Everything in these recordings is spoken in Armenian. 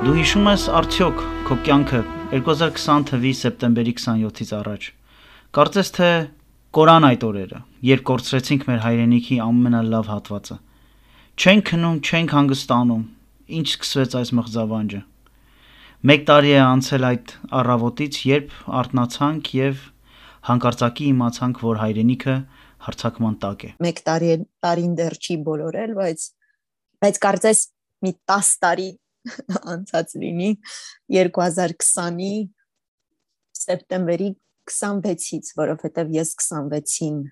Դու հիշում ես արդյոք քո կյանքը 2020 թվականի սեպտեմբերի 27-ից առաջ։ Կարծես թե կորան այդ օրերը, երբ կորցրեցինք մեր հայրենիքի ամենալավ հատվածը։ Չենք քնում, չենք հանգստանում, ինչ սկսվեց այս մղձավանջը։ 1 տարի է անցել այդ առավոտից, երբ արթնացանք եւ հանկարծակի իմացանք, որ հայրենիքը հարձակման տակ է։ 1 տարին դեռ չի բոլորել, բայց կարծես մի 10 տարի անցած լինի 2020-ի սեպտեմբերի 26-ից, որովհետև ես 26-ին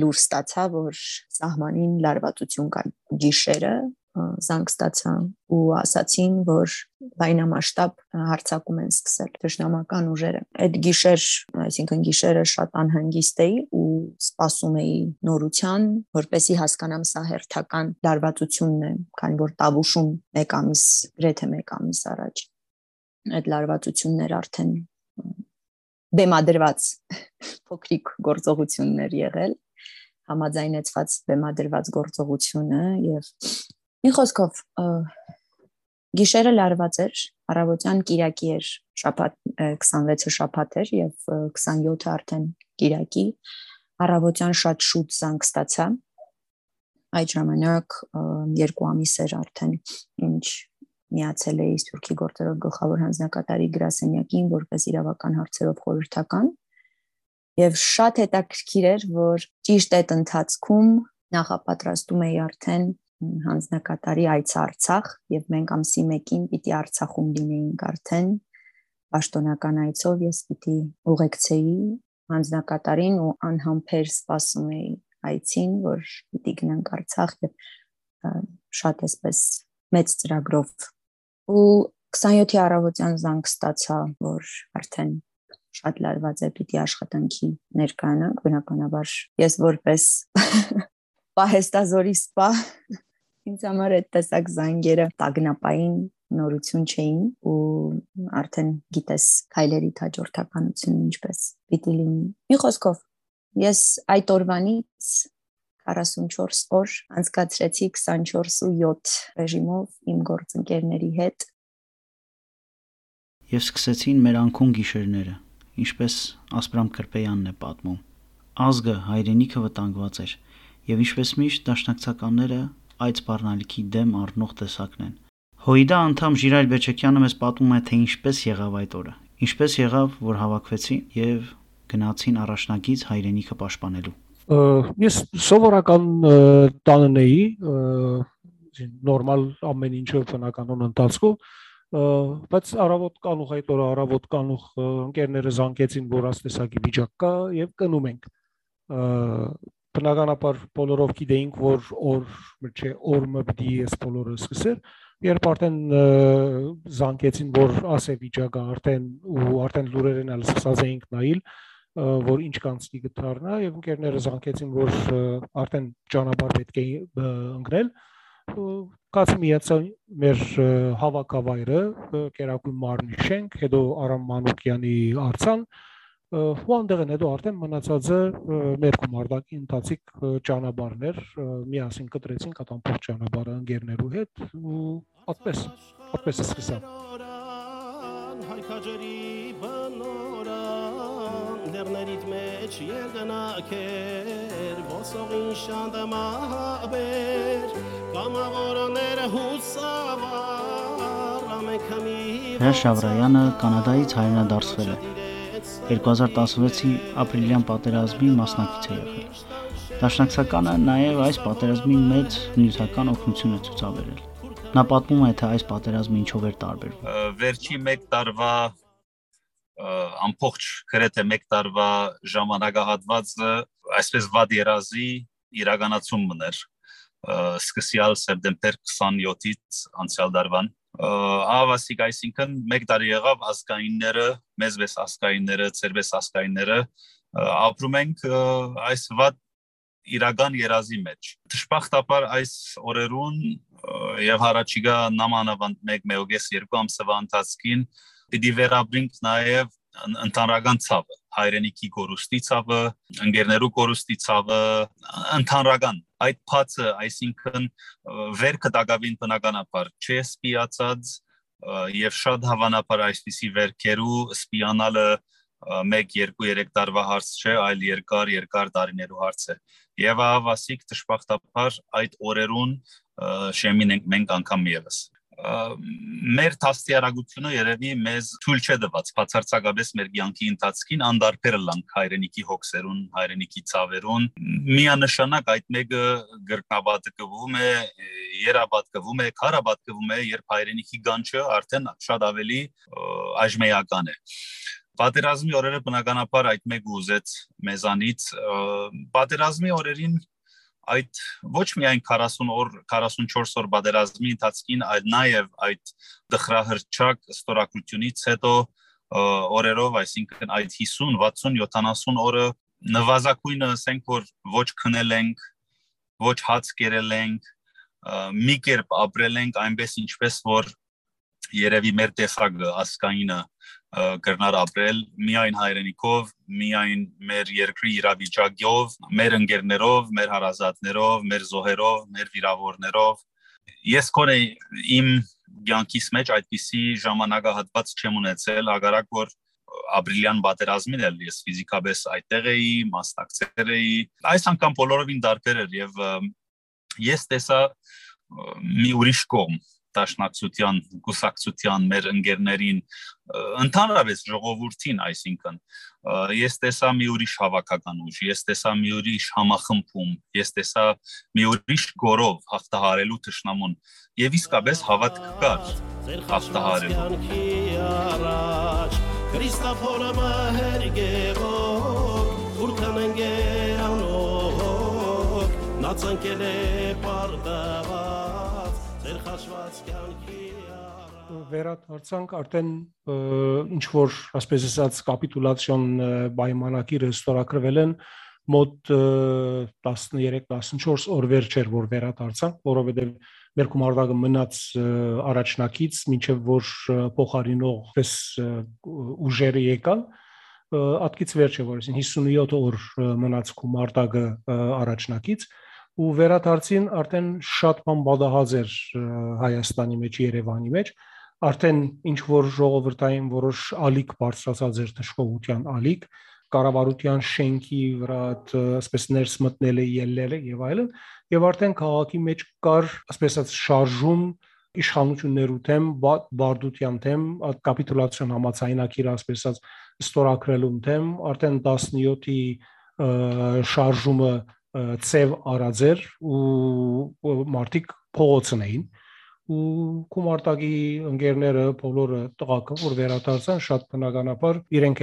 լուր ստացա, որ սահմանին լարվածություն կա գիշերը, զանգ ստացա ու ասացին, որ լայնամասշտաբ հարձակում են սկսել թշնամական ուժերը։ Այդ գիշեր, այսինքն գիշերը շատ անհանգիստ էի ու սպասում էի նորության, որպեսզի հասկանամ սա հերթական լարվածությունն է, քանի որ Տավուշում 1 ամիս, գրեթե 1 ամիս առաջ այդ լարվածություններ արդեն բեմադրված փոքրիկ գործողություններ եղել, համաձայնեցված բեմադրված գործողությունը եւ մի խոսքով գիշերը լարված էր, առավոտյան կիրակի էր, շաբաթ 26-ը շաբաթ էր եւ 27-ը արդեն կիրակի, առավոտյան շատ շուտ զանգ ստացա։ Այդ ժամանակ 2 ամիս էր արդեն ինչ միացել էի Սփյուռքի գործերով գլխավոր հանձնակատարի գրասենյակին որպես իրավական հարցերով խորհրդական եւ շատ հետաքրքիր էր, որ ճիշտ այդ ընթացքում նախապատրաստում էի արդեն հանձնակատարի այցը Արցախ եւ մենք ամսի 1-ին պիտի Արցախում լինեինք արդեն պաշտոնական այցով ես պիտի ուղեկցեի հանձնակատարին ու անհամբեր սպասում էի այցին, որ պիտի գնանք Արցախ եւ շատ էսպես մեծ ծրագրով ու 27-ի առավոտյան զանգ ստացա, որ արդեն շատ լարված է, պիտի աշխատանքի ներկայանանք, բնականաբար ես որպես պահեստազորի սպա ինձ համար այդ տեսակ զանգերը տագնապային նորություն չէին ու արդեն գիտես քայլերի հաջորդականությունը ինչպես պիտի լինի։ Մի խոսքով ես այդ օրվանից 44 օր անցկացրեցի 24/7 ռեժիմով իմ գործընկերների հետ եւ սկսեցին մեր անքուն գիշերները, ինչպես Ասպրամ Կրպեյանն է պատմում։ Ազգը, հայրենիքը վտանգված էր եւ ինչպես միշտ դաշնակցականները այդ սպառնալիքի դեմ առնող տեսակն են։ ՀՅԴ անդամ Ժիրայր Բեչեկյանը մեզ պատմում է, թե ինչպես եղավ այդ օրը։ Ինչպես եղավ, որ հավաքվեցին եւ գնացին առաջնագիծ հայրենիքը պաշտպանելու։ Ես սովորական տանն էի, նորմալ ամեն ինչը բնականon ընթացքում, բայց առավոտ կանուխ այդ օրը առավոտ կանուխ ընկերները զանգեցին, որ աստեսակի վիճակ կա եւ կնում ենք։ Բնականաբար բոլորով գիտեինք, որ օրը պիտի ես բոլորը սկսել, երբ արդեն զանգեցին, որ ասե վիճակը արդեն լուրերն էլ սկսած էինք նայել, որ ինչ կանցնի գտարնա եւ ընկերները զանգեցին, որ արդեն ճանապարհ պետք է ընկնել, կաց միացան մեր հավաքավայրը, Կերակույն մարմնի շենք, հետո Արամ Մանուկյանի արձան, ու այնտեղն հետո արդեն մնացածը մեր գումարտակի ընթացիկ ճանապարհներ, միասին կտրեցինք այդ ամբողջ ճանապարհը ընկերներու հետ ու այդպես սկսա։ Լեռներիդ մեջ երկնակեր ոսողին շանդամաբեր կամավորները հուսավար ամենքամի Հրաշ Շավրայանը Կանադայից հայրենադարձվել է։ 2016-ի ապրիլյան պատերազմի մասնակից է եղել։ Դաշնակցականը նաև այս պատերազմի մեծ նյութական օգնություն է ցուցաբերել։ Նա պատմում է, թե այս պատերազմը ինչով էր տարբերվում։ Վերջի 1 տարվա ամբողջ գրեթե 1 տարվա ժամանակահատվածը այսպես վատ երազի իրականացումն էր սկսյալ սեպտեմբեր 27-ից անցյալ տարվան ավասիկ այսինքն 1 տարի եղավ ազգայինները մեզպես ազգայինները ծերպես ազգայինները ապրում ենք այս վատ իրական երազի մեջ։ Դժբախտաբար այս օրերուն եւ հարաճիգա նամանավանդ 1-2 ամսվա ընթացքին պիտի վերաբրենք նաեւ ընդհանրական ցավը, հայրենիքի կորուստի ցավը, ընկերներու կորուստի ցավը, ընդհանրական այդ փածը, այսինքն վերքը դակավին բնականաբար չէ սպիացած եւ շատ հավանաբար այսպիսի վերքերու սպիանալը 1-2-3 տարվա հարց չէ, այլ երկար տարիներու հարց է։ Եվ ավասիկ դժբախտաբար այդ օրերուն շեմին ենք մենք անգամ եւս։ Մեր դաստիարակությունը երևի մեզ թույլ չէ տված բացարձակապես մեր կյանքի ընթացքին անդարբեր լանք հայրենիքի հոգսերուն, հայրենիքի ցավերուն, միանշանակ այդ մեկը գրկաբատկվում է, երաբատկվում է, քարաբատկվում է, երբ հայրենիքի գանչը արդեն շատ ավելի այժմեական է։ Պատերազմի օրերը բնականաբար այդ մեկը ուզեց մեզանից, պատերազմի օրերին այդ ոչ միայն 40 օր, 44 օր պատերազմի ընթացքին, այլ նաև այդ դխրահրճակ ստորագրությունից հետո օրերով, այսինքն այդ 50, 60, 70 օրը նվազագույնը ասենք որ ոչ քնել ենք, ոչ հաց կերել ենք, մի կերպ ապրել ենք այնպես ինչպես որ երևի մեր տեսակը ասկայինը կրնար ապրել միայն հայրենիքով, միայն մեր երկրի իրավիճակով, մեր ընկերներով, մեր հարազատներով, մեր զոհերով, մեր վիրավորներով։ Ես կոնե իմ կյանքիս մեջ այդպիսի ժամանակահատված չեմ ունեցել, հակառակ որ ապրիլյան պատերազմին էլ ես ֆիզիկապես այդտեղ էի, մասնակցել էի։ Այս անգամ բոլորովին տարբեր էր եւ ես տեսա մի ուրիշ կողմ դաշնակցության, կուսակցության մեր ընկերներին, ընդհանրապես ժողովրդին, այսինքն ես տեսա մի ուրիշ հավաքական ուժ, ես տեսա մի ուրիշ համախմբում, ես տեսա մի ուրիշ գորով հաղթահարելու թշնամուն եւ իսկապես հավատք կար հաղթահարելու։ Քրիստոֆորը մահերգեվով, թուրքան ընկերանով, նացանքել է պարդաված, ձեր խաշված կյանքի վերադարձանք արդեն ինչ որ ասպես ասած կապիտուլացիոն պայմանագիրը ստորագրվել են մոտ 13-14 օր վերջ էր որ վերադարձանք, որովհետև մեր գումարտակը մնաց առաջնակից, մինչև որ փոխարինող ուժերը եկան, ատկից վերջ է, որ 57 օր մնաց գումարտակը առաջնակից, ու վերադարձին արդեն շատ բան բադահած էր Հայաստանի մեջ, Երևանի մեջ, արդեն ինչ որ ժողովրդային որոշ ալիք բարձրացած էր թշկողության ալիք, կառավարության շենքի վրա ասես ներս մտնել է ելնել եւ այլն եւ արդեն քաղաքի մեջ կար ասես շարժում իշխանություններու դեմ բարդության դեմ կապիտուլացիոն համաձայնագիրը ասես ստորագրելու դեմ արդեն 17-ի շարժումը ծև արած էր ու մարդիկ փողոցն էին ու գումարտակի ընկերները բոլորը տղաքը որ վերադարձան շատ բնականաբար իրենք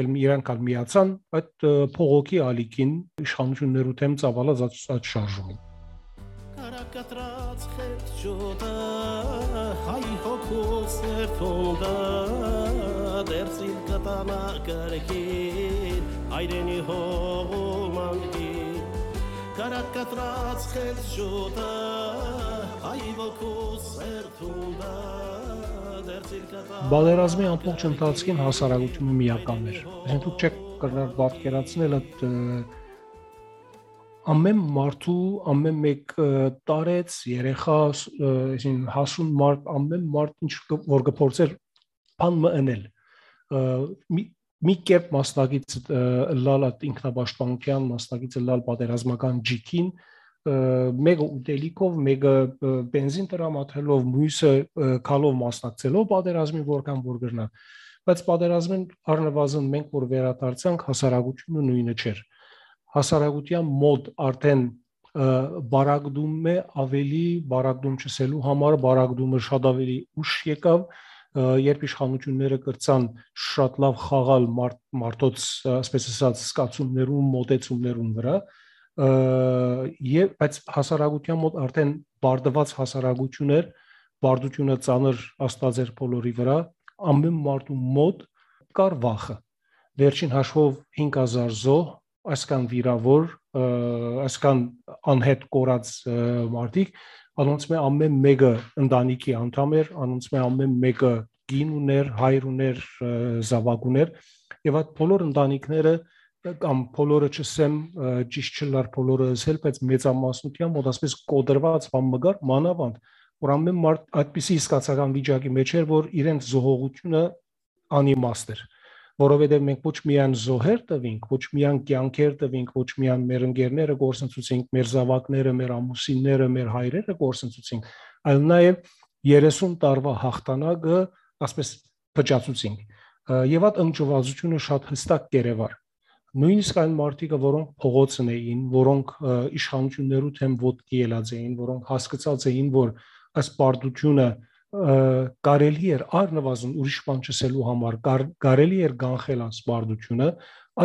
միացան այդ փողոքի ալիքին իշխանություններու դեմ ծավալած այդ շարժումին Կարակատրած խեցջոտը հայ հոգուս երթունդը դերսիլ կտանա կրքին հայրենի հողումանգին Կարակատրած խեցջոտը Բادرազմի ամբողջ ընթացքին հասարակությունը միական էր։ Այսինքն դուք չեք կրնար պատկերացնել այդ ամեն մարդու ամեն մեկ տարեց երեխա, այսինքն հասուն մարդ ամեն մարդ ինչ որ կփորձեր բան մընել։ Մի կերպ մասնակից լալ ինքնապաշտպանության մասնակից լալ պատերազմական ջիքին մեկը ուտելիքով, մեկը բենզին տրամադրելով, մյուսը քալով մասնակցելով պատերազմին որքան որ գրնա։ Բայց պատերազմին առնվազն մենք որ վերադարձանք հասարակությունը նույնը չէր։ Հասարակության մոտ արդեն բարակդում է ավելի բարակդում չսելու համար բարակդումը շատ ավելի ուշ եկավ, երբ իշխանությունները կրծան շատ լավ խաղալ մարդոց, ասես ասած, սկացումներում, մոտեցումներում վրա բայց հասարակության մոտ արդեն բարդված հասարակություն էր, բարդությունը ծանր աստված էր բոլորի վրա, ամեն մարդու մոտ կար վախը։ Վերջին հաշվով 5000 զոհ, այսքան վիրավոր, այսքան անհետ կորած մարդիկ, անոնց մե ամեն մեկը ընտանիքի անդամ էր, անոնց մե ամեն մեկը գին ուներ, հայր ուներ, զավակ ուներ, եւ այդ բոլոր ընտանիքները կամ բոլորը չսեմ ճիշտ չլար բոլորը ասել, բայց մեծամասնությամբ մոտ ասես կոդրված բան մգար մանավանդ, որ ամեն մարդ այդպիսի իսկացական վիճակի մեջ էր, որ իրենց զոհողությունը անիմաստ էր, որովհետև մենք ոչ միայն զոհեր տվինք, ոչ միայն կյանքեր տվինք, ոչ միայն մեր ընկերները գործընծուցինք, մեր զավակները, մեր ամուսինները, մեր հայրերը գործընծուցինք, այլ նաև 30 տարվա հաղթանակը, ասես փճացուցինք, եւ այդ ընկճվածությունը շատ հստակ կերևար։ Նույնիսկ այն մարդիկը, որոնք փողոցն էին, որոնք իշխանություններու թեմ ոտքի ելած էին, որոնք հասկացած էին, որ այս պարտությունը կարելի էր առնվազն ուրիշ բան չսելու համար, կարելի էր կանխել այս պարտությունը,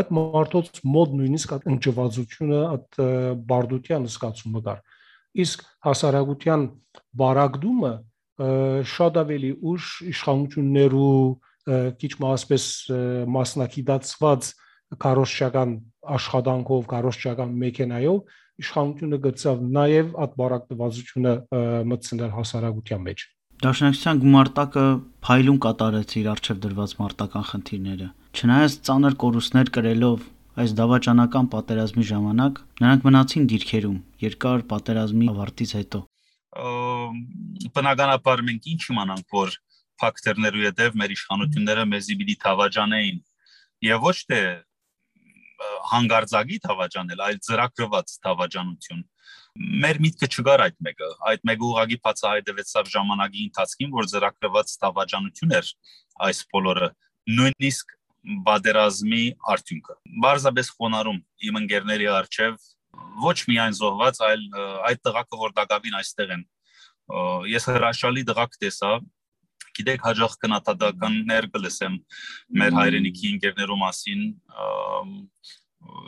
այդ մարդոց մոտ նույնիսկ այդ ընկճվածությունը, այդ բարդության զգացումը կար։ Իսկ հասարակության բարակդումը շատ ավելի ուշ իշխանություններու քիչ մասպես մասնակցված կարոշչական աշխատանքով, կարոշչական մեքենայով իշխանությունը գծավ նաև այդ բարակտվածությունը մտցնել հասարակության մեջ։ Դաշնակցության գումարտակը փայլուն կատարեց իր առջև դրված մարտական խնդիրները։ Չնայած ծանր կորուստներ կրելով այս դավաճանական պատերազմի ժամանակ, նրանք մնացին դիրքերում երկար պատերազմի ավարտից հետո։ Բնականաբար մենք ինչ իմանանք, որ ֆակտորներու հետև մեր իշխանությունները մեզի պիտի թավաճանեին եւ ոչ թե հանգարձակի թավաճանել, այլ ծրագրված թավաճանություն։ Մեր միտքը չկար այդ մեկը ուղղակի բացահայտվեցավ ժամանակի ընթացքին, որ ծրագրված թավաճանություն էր այս բոլորը, նույնիսկ պատերազմի արդյունքը։ Բարձրապես խոնարհում իմ ընկերների առջև ոչ միայն զոհված, այլ այդ տղաքը, որ դակավին այստեղ են։ Ես հրաշալի տղակ տեսա, գիտեք, հաջող քննադատականներ կլսեմ մեր հայրենիքի ընկերներու մասին,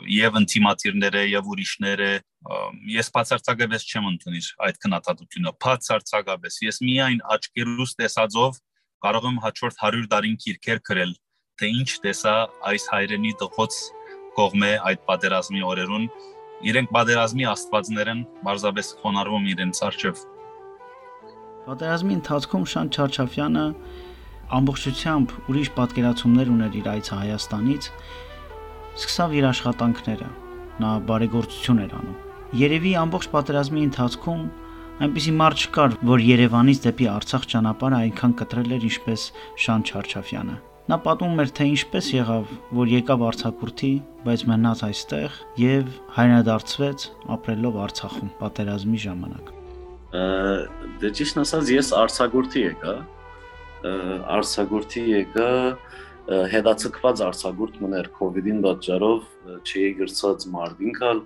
եւ ինտիմատիրները եւ ուրիշները, ես բացարձակապես չեմ ընդունիր այդ քննադատությունը, բացարձակապես։ Ես միայն աչքերուս տեսածով կարող եմ հաջորդ 100 տարին քիրքեր գրել, թե ինչ տեսա այս հայրենի տղոց կողմէ այդ պատերազմի օրերուն, իրենք պատերազմի աստվածներ են, բարձրապես խոնարհվում իրենց առջև։ Պատերազմի ընթացքում Շան Չարչաֆյանը ամբողջությամբ ուրիշ պատկերացումներ ուներ իր այցը Հայաստանից, սկսավ իր աշխատանքները, նա բարեգործություն էր անում։ Երևի ամբողջ պատերազմի ընթացքում այնպիսի մարդ չկար, որ Երևանից դեպի Արցախ ճանապարհը այնքան կտրել էր, ինչպես Շան Չարչաֆյանը։ Նա պատմում էր, թե ինչպես եղավ, որ եկավ արձակուրդի, բայց մնաց այստեղ եւ հայրենադարձվեց ապրելով Արցախում պատերազմի ժամանակ։ Դե ճիշտ ասած, ես արձակուրդի եկա հետացկված արձակուրդ մներ COVID-ին պատճառով չի գրծած մարդինքալ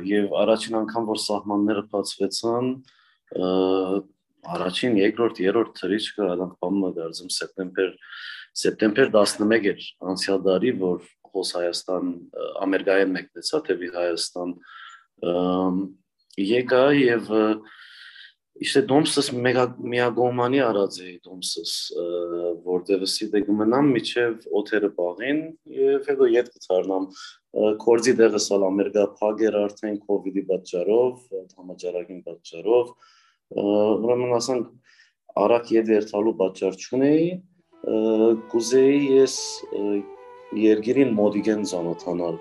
եւ առաջին անգամ որ սահմանները բացվեցան առաջին, երկրորդ, երրորդ թրիչքը այդանք բանը դարձում սեպտեմբեր 11 էր անցյալ տարի, որ հոս Հայաստան Ամերիկայեն մեկնեցա թեպի Հայաստան եկա եւ իշտե դոմսս միագոմանի արած էի դոմսս որտեղ սիդե գմնամ միջև օթերը բաղին եւ հետո ետ կցարնամ կորձի դեղս ալ Ամերիկա փագեր արդեն COVID-ի պատճառով համաճարակին պատճառով ուրեմն ասենք արագ ետ երթալու պատճառ չունեի կուզեի ես երգիրին մոդիգեն ծանոթանալ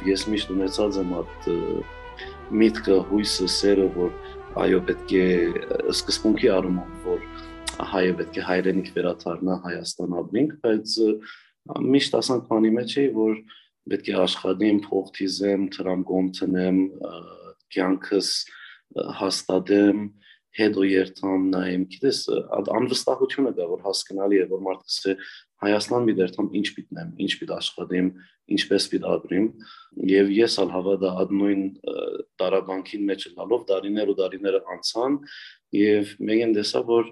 Ես միշտ ունեցած եմ այդ միտքը, հույսը, սերը, որ այո պետք է սկզբունքի առումով, որ հայը պետք է հայրենիք վերադառնա Հայաստան ապրենք, բայց միշտ ասանք բանի մեջ էի, որ պետք է աշխատեմ, փող թիզեմ, տրամկոմ տնեմ, կյանքս հաստատեմ, հետո երթամ նայեմ, գիտես, անվստահությունը կա, որ հասկանալի է, որ մարդը Հայաստան մի դերթամ ինչ պիտնեմ, ինչ պիտ աշխատեմ, ինչպես պիտ ապրեմ, եւ ես ալ հավատա այդ նույն տարաբանքին մեջ լալով դարիներ ու դարիները անցան եւ մեկն տեսա, որ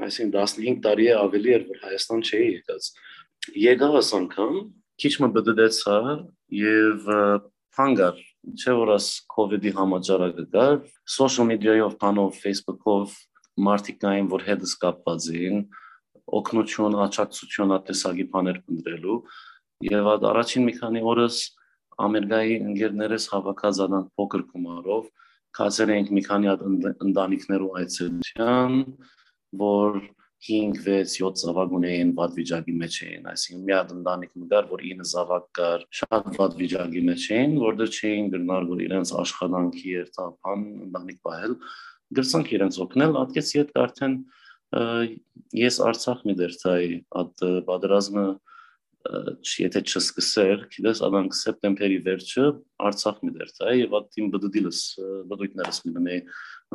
այսինքն 15 տարի է ավելի էր, որ Հայաստան չէի եկած։ Եկա այս անգամ, քիչ մը բդդեցա եւ հանգար չէ որ աս COVID-ի համաճարակը կար, social media-ով, բանով, Facebook-ով մարդիկ կային, որ հետս կապված էին, օգնություն, աջակցություն ատեսագի բաներ փնտրելու, եւ առաջին մի քանի օրս Ամերիկայի ընկերներս հավաքած անան փոքր գումարով, կացել էինք մի քանի հատ ընտանիքներու այցելության, որ 5-6-7 զավակ ունեին վատ վիճակի մեջ էին, այսինքն մի հատ ընտանիք մգար, որ 9 զավակ կար, շատ վատ վիճակի մեջ էին, որտեղ չէին գնալ, որ իրենց աշխատանքի երթափան ընտանիք պահել, գրցանք իրենց օգնել, ատկեց իդ արդեն ես Արցախ մի դերթայի, այդ պատերազմը եթե չսկսեր, գիտես, adank սեպտեմբերի վերջը Արցախ մի դերթայի եւ այդ իմ բդույթներս մի դնեի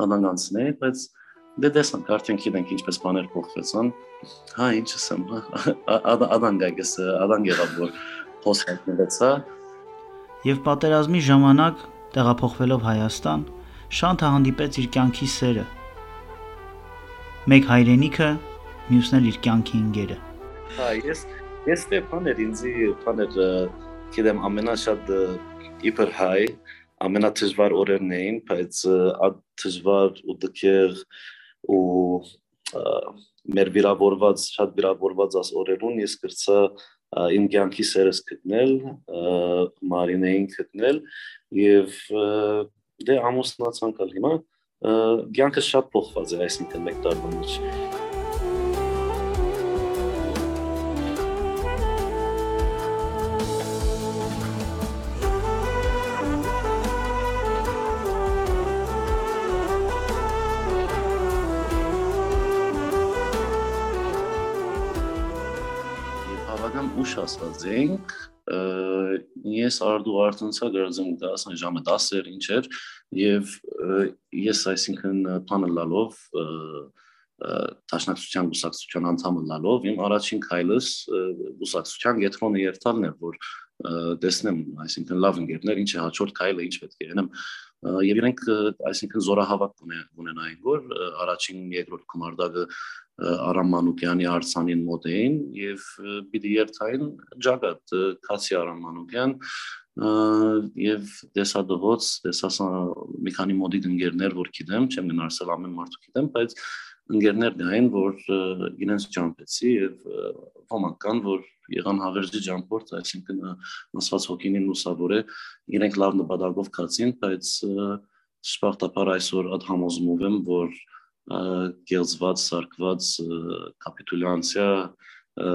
adank անցնեի, բայց դե դեսանք արդեն գիտենք ինչպես բաներ փոխվեցան, հա ինչ ասեմ, adank այգես, adank եղավ որ փոխվեցա Եվ պատերազմի ժամանակ տեղափոխվելով Հայաստան, Շանթը հանդիպեց իր կյանքի սերը։ Մեկ հայրենիքը, մյուսն էլ իր կյանքի ընկերը։ Հա, ես բաներ ինձի բաներ գիտեմ ամենաշատ իբր հայ ամենադժվար օրերն էին, բայց այդ դժվար ու դժգեր ու մեր վիրավորված շատ վիրավորված աս օրերուն ես կրծա իմ կյանքի սերս գտնել, Մարինեին գտնել եւ դե ամուսնացանք հիմա կյանքը շատ փոխված է այսինքն մեկ տարվա մեջ ուշ ասած ենք, ես արդու արդնցա գրձում դասան ժամը 10 ինչ էր և ես այսինքն պանը լալով, տաշնակցության գուսակցության անդամը լալով, իմ առաջին քայլս գուսակցության գետրոնը երթալն էր, որ տեսնեմ, այսինքն լավ ընկերներ, ինչ է հաջորդ քայլը, ինչ պետք է ենեմ, և իրենք այսինքն զորահավաք ունենային, որ առաջին երկրորդ գումարդակը Արամ Մանուկյանի արձանին մոտ էին և պիտի երթային ջագատ Քացի Արամ Մանուկյան և տեսադողոց, մի քանի մոդիկ ընկերներ, որ գիտեմ, չեմ գնարսել ամեն մարդու գիտեմ, բայց ընկերներ գային, որ իրենց ջամպեցի և ոմանք կան, որ եղան հավերժի ջամպորտ, այսինքն ասված հոգինին լուսավոր է, իրենք լավ նպատակով կացին, բայց շպախտապար այսօր այդ համոզմով եմ, որ գելձված, սարկված կապիտուլյանցիա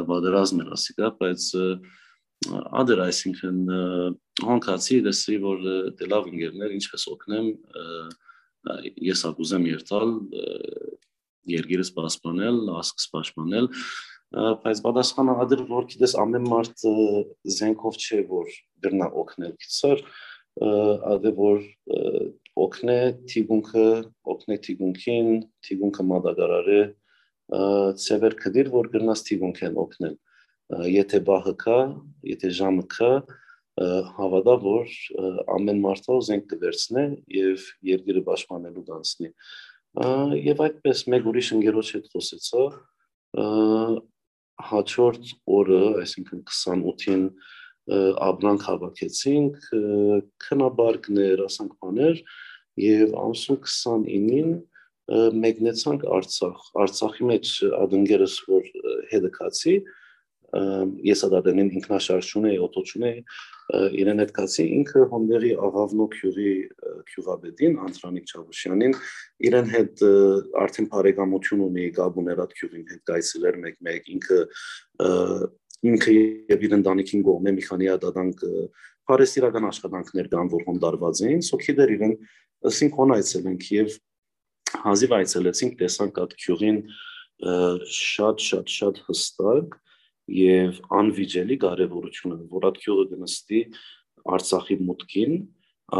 բادرազմ էր ասիկա, բայց ադր այսինքն հոնքացի դեսի, որ դե լավ ընկերներ, ինչպես օգնեմ, ես ակուզեմ երթալ, երգիրս պասպանել, ասկս պաշպանել, բայց բադասխանը ադր, որ գիտես ամեն մարդ զենքով չէ, որ գրնա օգնել գիցար, ադե որ օգնե թիգունքին, թիգունքը մադագարար է, ծևեր կդիր, որ գրնաս թիգունք են օգնել, եթե բահը կա, եթե ժամը կա, հավադա, որ ամեն մարդով զենք կվերցնե և երգիրը պաշպանելու դանցնի, և այդպես մեկ ուրիշ ընգերոջ հետ խոսեցա, հաջորդ օրը, այսինքն 28-ին ապրանք հավաքեցինք, քնաբարկներ, ասանք բաներ և ամսուն 29-ին մեկնեցանք Արցախ, Արցախի մեջ ադընկերս, որ հետը կացի, ես ադադենին ինքնաշարժ չունեի, օտո չունեի, իրեն հետ կացի, ինքը հոնդերի աղավնո քյուղի քյուղաբեդին, Անտրանիկ Չավուշյանին, իրեն հետ արդեն բարեկամություն ունի գաբուներ այդ քյուղին հետ գայցել էր մեկ-մեկ, ինքը և իր ընտանիքին գողմ է մի քանի ադադանք պարեսիրական աշխատանքներ կան, որ հոնդարված էին, սոքիդեր իրեն ըսինք հոն այցելենք և հազիվ այցելեցինք, տեսանք այդ քյուղին շատ հստակ և անվիճելի կարևորությունը, որ այդ քյուղը գնստի Արցախի մուտքին,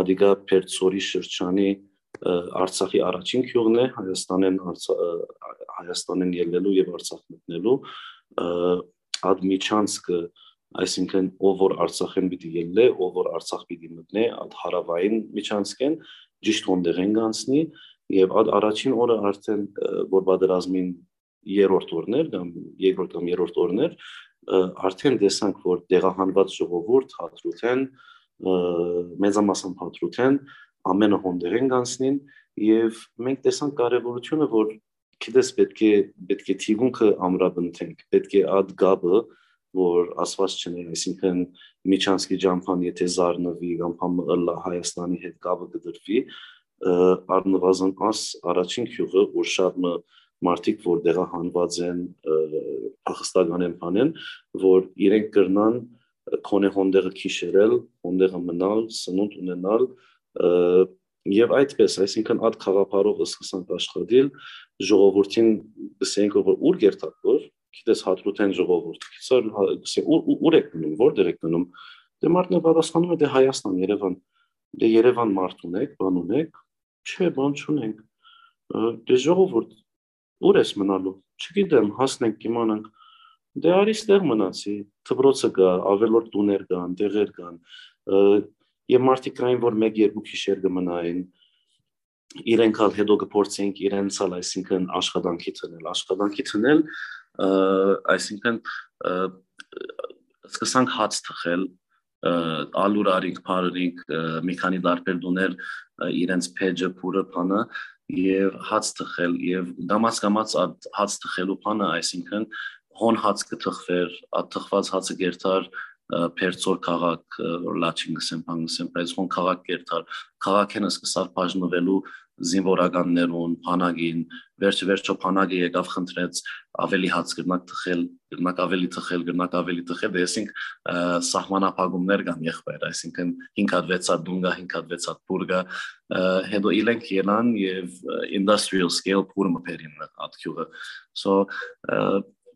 ադիգա Պերձորի շրջանի Արցախի առաջին քյուղն է, Հայաստանեն ելնելու և Արցախ մտնելու, այդ միջանցքը, այսինքն ով որ Արցախեն պիտի ելնե, ով որ Արցախ պիտի մտնե, այդ հարավային միջանցք են, ճիշտ հոնդեղ են գանցնի, և այդ առաջին օրը արդեն, որ պատերազմին երրորդ օրներ, երկրորդ կամ երրորդ օրներ, արդեն տեսանք, որ տեղահանված ժողովուրդ հատրութեն մեծամասամբ հատրութեն ամենը հոնդեր են գանցնին եւ մենք տեսանք կարեւորությունը որ գիտես պետք է թիգունքը ամրապնդենք պետք է այդ գաբը որ ասված չնե այսինքն Միչանսկի ջամփան եթե զառնվի կամ ըլլա Հայաստանի հետ գաբը կդրվի առնվազն աս առաջին քյուղը որ շատ մարդիկ որ դեղահանված են փախստական են բանեն որ իրենք կրնան քոնե հոնդեղը քիշերել հոնդեղը մնալ սնունդ ունենալ եւ այդպես այսինքն այդ խաղապարով սկսանք աշխատել ժողովրդին գսենք որ ուր գերտակ որ գիտես հատրութեն ժողովուրդ գսենք ուր եք գնում որտեղ եք գնում դե մարդն պատասխանում է դե Հայաստան Երևան դե Երևան մարդ ունեք բան ունեք չէ բան չունենք դե ժողովուրդ ուր ես մնալու չգիտեմ հասնենք իմանանք դե արի ստեղ մնացի դպրոցը կա ավելորդ տուներ կան տեղեր կան եւ մարդիկ կային որ 1-2 քիշեր կմնային իրենք ալ հետո կփորձենք իրենց ալ այսինքն աշխատանքի թնել այսինքն սկսանք հաց թխել ալուրարիկ փարրիկ մի քանի դարբեր դուներ իրենց փեջը փուրը փանը եւ հաց թխել եւ դամած հաց թխելու փանը այսինքն հոն հաց կթխվեր թխված հացը գերտար Պերցոր քաղաք լաչին գսեմ բանգսեմ բայց հոն քաղաք գերտար քաղաքենը սկսավ բաժնվելու զինվորականներուն փանագին վերջը փանագը եկավ խնդրեց ավելի հաց կրնակ թխել կրնակ ավելի թխել դեսինք սահմանափակումներ կան եղբայր այսինքն 5 հատ 6 հատ դունգա 5 հատ 6 հատ բուրգա հետո իլենք ելան եւ industrial scale փուրը մփերին ատքյուղը so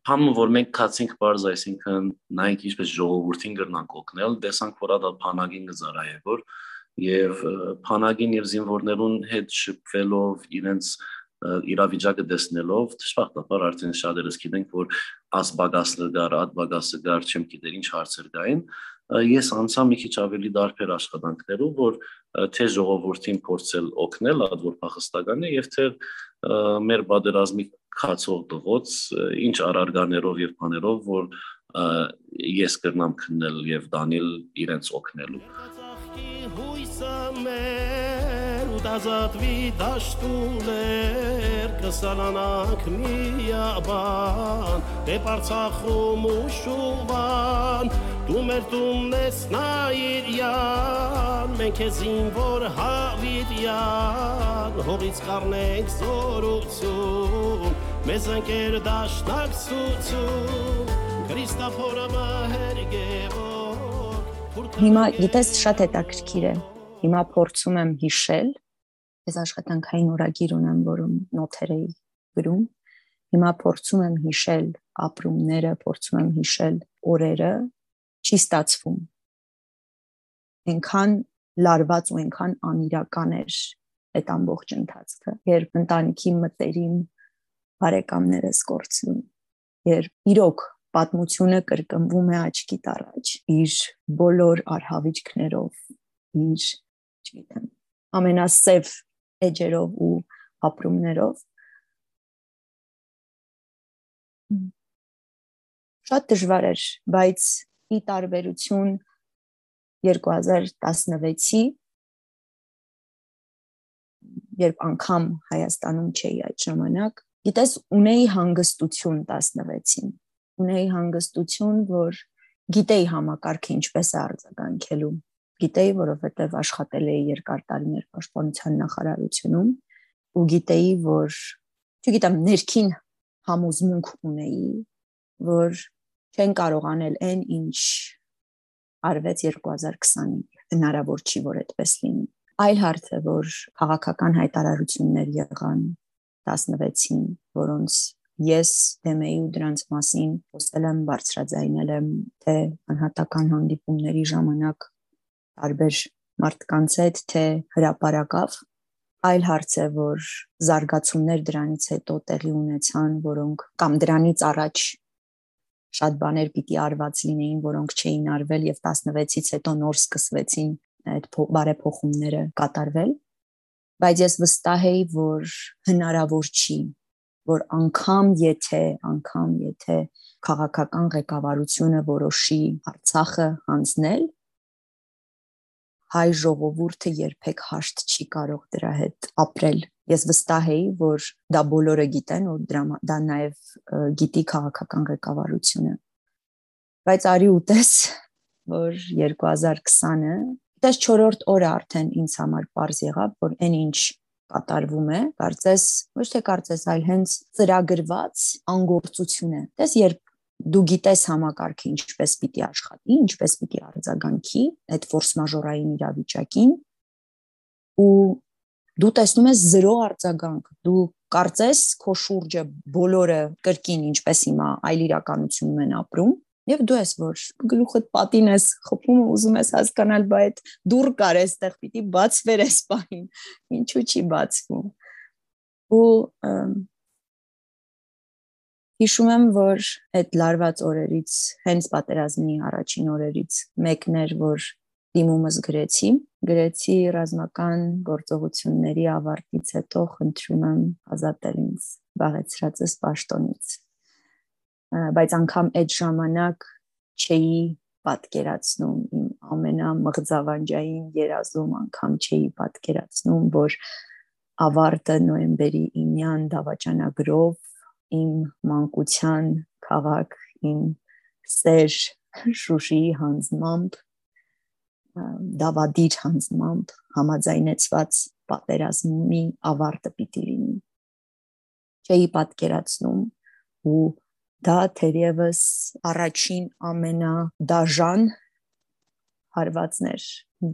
Համը որ մենք կացինք բարձ այսինքն նայենք ինչպես ժողովրդին կրնանք օգնել տեսանք որ դա փանագին գզարայեվոր եւ փանագին եւ զինվորներուն հետ շփվելով իրենց իրավիճակը տեսնելով դժբախտաբար արդեն շատերս գիտենք որ աս բագասը գար ատ բագասը գար չեմ գիտեր ինչ հարցեր կային ես անցա մի քիչ ավելի դարբեր աշխատանքներով որ թե ժողովրդին փորձել օգնել ատ որ փախստական է եւ թե մեր բادرազմի քացող դղոց ինչ արարգաներով եւ բաներով որ ես կրնամ քննել եւ դանել իրենց օգնելու Դազատվի դաշտուներ կսալանանք միաբան դեպ Արցախում ու Շուվան դու մեր տունն ես նայիրյան մենք ես զինվոր հավիտյան հողից կառնենք զորություն մեզ ընկեր դաշնակցություն Քրիստոֆորը մահերգևոք Հիմա գիտես շատ հետաքրքիր է Հիմա փորձում եմ հիշել Ես աշխատանքային օրագիր ունեմ, որում նոթեր էի գրում։ Հիմա փորձում եմ հիշել ապրումները, փորձում եմ հիշել օրերը, չի ստացվում։ Այնքան լարված ու այնքան անիրական էր այդ ամբողջ ընթացքը, երբ ընտանիքի մտերիմ բարեկամներս կորցնում, երբ իրոք պատմությունը կրկնվում է աչքիդ առաջ, իր բոլոր արհավիճքներով, իր, չգիտեմ, ամենասև էջերով ու ապրումներով շատ դժվար էր, բայց ի տարբերություն 2016-ի երբ անգամ Հայաստանում չէի այդ ժամանակ գիտես ունեի հանգստություն 16-ին ունեի հանգստություն որ գիտեի համակարգը ինչպես է արձագանքելու Գիտեի, որովհետև աշխատել էի երկար տարիներ պաշտպանության նախարարությունում ու գիտեի, որ չգիտեմ, ներքին համոզմունք ունեի, որ չեն կարող անել այն, ինչ արվեց 2020-ին, հնարավոր չի, որ այդպես լինի։ Այլ հարց է, որ քաղաքական հայտարարություններ եղան 16-ին, որոնց ես դեմ էի ու դրանց մասին խոսել եմ, բարձրաձայնել եմ, թե անհատական հանդիպումների ժամանակ տարբեր մարդկանց հետ թե հրապարակավ այլ հարց է որ զարգացումներ դրանից հետո տեղի ունեցան որոնք կամ դրանից առաջ շատ բաներ պիտի արված լինեին որոնք չէին արվել եւ 16-ից հետո նոր սկսվեցին այդ բարեփոխումները կատարվել բայց ես վստահ էի որ հնարավոր չի որ անգամ եթե քաղաքական ղեկավարությունը որոշի Արցախը հանձնել հայ ժողովուրդը երբեք հաշտ չի կարող դրա հետ ապրել։ Ես վստահ էի, որ դա բոլորը գիտեն, որ դա նաև գիտի քաղաքական ղեկավարությունը։ Բայց արի ուտես, որ 2020-ը, դες 4-րդ օրը արդեն ինձ համար པարզ եղավ, որ այն ինչ կատարվում է, կարծես, ոչ թե կարծես, այլ հենց ծրագրված անգործություն է։ Դες երբ դու գիտես համակարգը ինչպես պիտի աշխատի, ինչպես պիտի արձագանքի այդ ֆորս մաժորային իրավիճակին, ու դու տեսնում ես 0 արձագանք, դու կարծես քո շուրջը բոլորը կրկին ինչպես հիմա այլ իրականությունում են ապրում, եւ դու ես որ գլուխդ պատին ես խփում ու ուզում ես հասկանալ, բայ այդ դուր կար էստեղ պիտի բացվեր էս պահին, ինչու չի բացվում։ Ու հիշում եմ, որ այդ լարված օրերից, հենց պատերազմի առաջին օրերից մեկն էր, որ դիմումս գրեցի ռազմական գործողությունների ավարտից հետո խնդրում եմ ազատել ինձ զբաղեցրածս պաշտոնից։ Բայց անգամ այդ ժամանակ չէի պատկերացնում իմ ամենամղձավանջային երազում, անգամ չէի պատկերացնում, որ ավարտը նոյեմբերի 9-յան դավաճանագրով իմ մանկության քաղաք, իմ սեր Շուշիի հանձնմամբ, դավադիր հանձնմամբ համաձայնեցված պատերազմի ավարտը պիտի լինի։ Չէի պատկերացնում ու դա թերևս առաջին ամենադաժան հարվածն էր։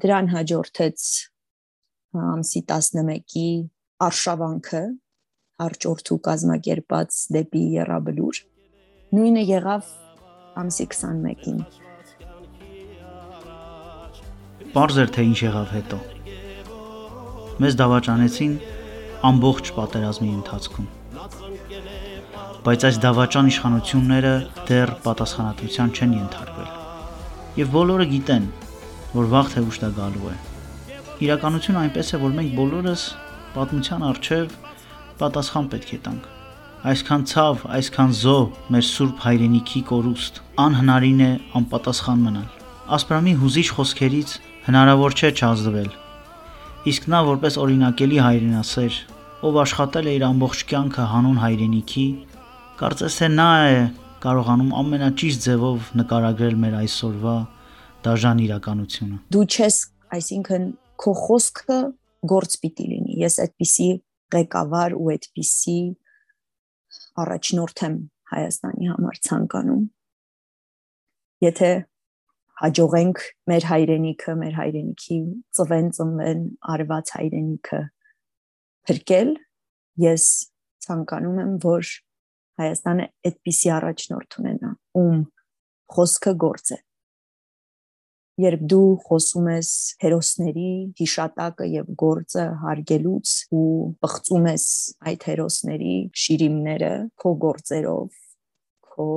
Դրան հաջորդեց ամսի 11-ի արշավանքը, արջորդու կազմակերպած դեպի Եռաբլուր, նույնը եղավ ամսի 21-ին։ Պարզ էր, թե ինչ եղավ հետո։ Մեզ դավաճանեցին ամբողջ պատերազմի ընթացքում։ Բայց այս դավաճան իշխանությունները դեռ պատասխանատվության չեն ենթարկվել։ Եվ բոլորը գիտեն, որ վաղ թե ուշ դա գալու է։ Իրականությունը այնպես է, որ մենք բոլորս պատմության առջև պատասխան պետք է տանք։ Այսքան ցավ, այսքան զոհ մեր սուրբ հայրենիքի կորուստ, անհնարին է անպատասխան մնալ։ Ասպրամի հուզիչ խոսքերից հնարավոր չէ չազդվել։ Իսկ նա որպես օրինակելի հայրենասեր, ով աշխատել է իր ամբողջ կյանքը հանուն հայրենիքի, կարծես թե նա է կարողանում ամենաճիշտ ձևով նկարագրել մեր այսօրվա դաժան իրականությունը։ Դու չես, այսինքն քո խոսքը գործ պիտի լինի։ Ես այդպիսի ղեկավար ու այդպիսի առաջնորդ եմ Հայաստանի համար ցանկանում։ Եթե հաջողենք մեր հայրենիքի ծնվեն արված հայրենիքը փրկել, ես ցանկանում եմ, որ Հայաստանը այդպիսի առաջնորդ ունենա, ում խոսքը գործ է։ Երբ դու խոսում ես հերոսների հիշատակը եւ գործը հարգելուց ու բղծում ես այդ հերոսների շիրիմները քո գործերով, քո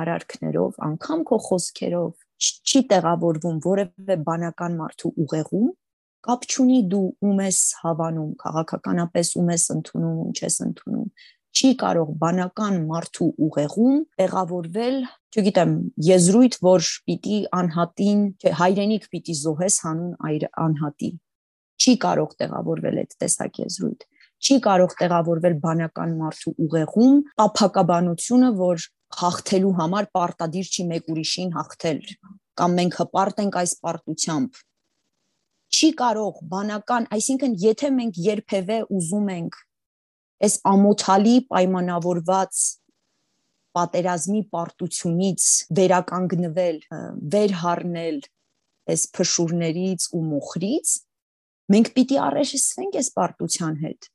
արարքներով, անգամ քո խոսքերով, չի տեղավորվում որևէ բանական մարդու ուղեղում, կապ չունի դու ում ես հավանում, քաղաքականապես ում ես ընդունում, ում չես ընդունում, չի կարող բանական մարդու ուղեղում տեղավորվել, չգիտեմ, եզրույթ, որ պիտի անհատին, հայրենիք պիտի զոհես հանուն անհատի, չի կարող տեղավորվել այդ տեսակ եզրույթ, չի կարող տեղավորվել բանական մարդու ուղեղում տափակաբանությունը, որ հաղթելու համար պարտադիր չի մեկ ուրիշին հաղթել, կամ մենք հպարտ ենք այս պարտությամբ, չի կարող բանական, այսինքն եթե մենք երբևէ ուզում ենք այս ամոթալի պայմանավորված պատերազմի պարտությունից վերականգնվել, վերհառնել այս փշուրներից ու մոխրից, մենք պիտի առերեսվենք այս պարտության հետ։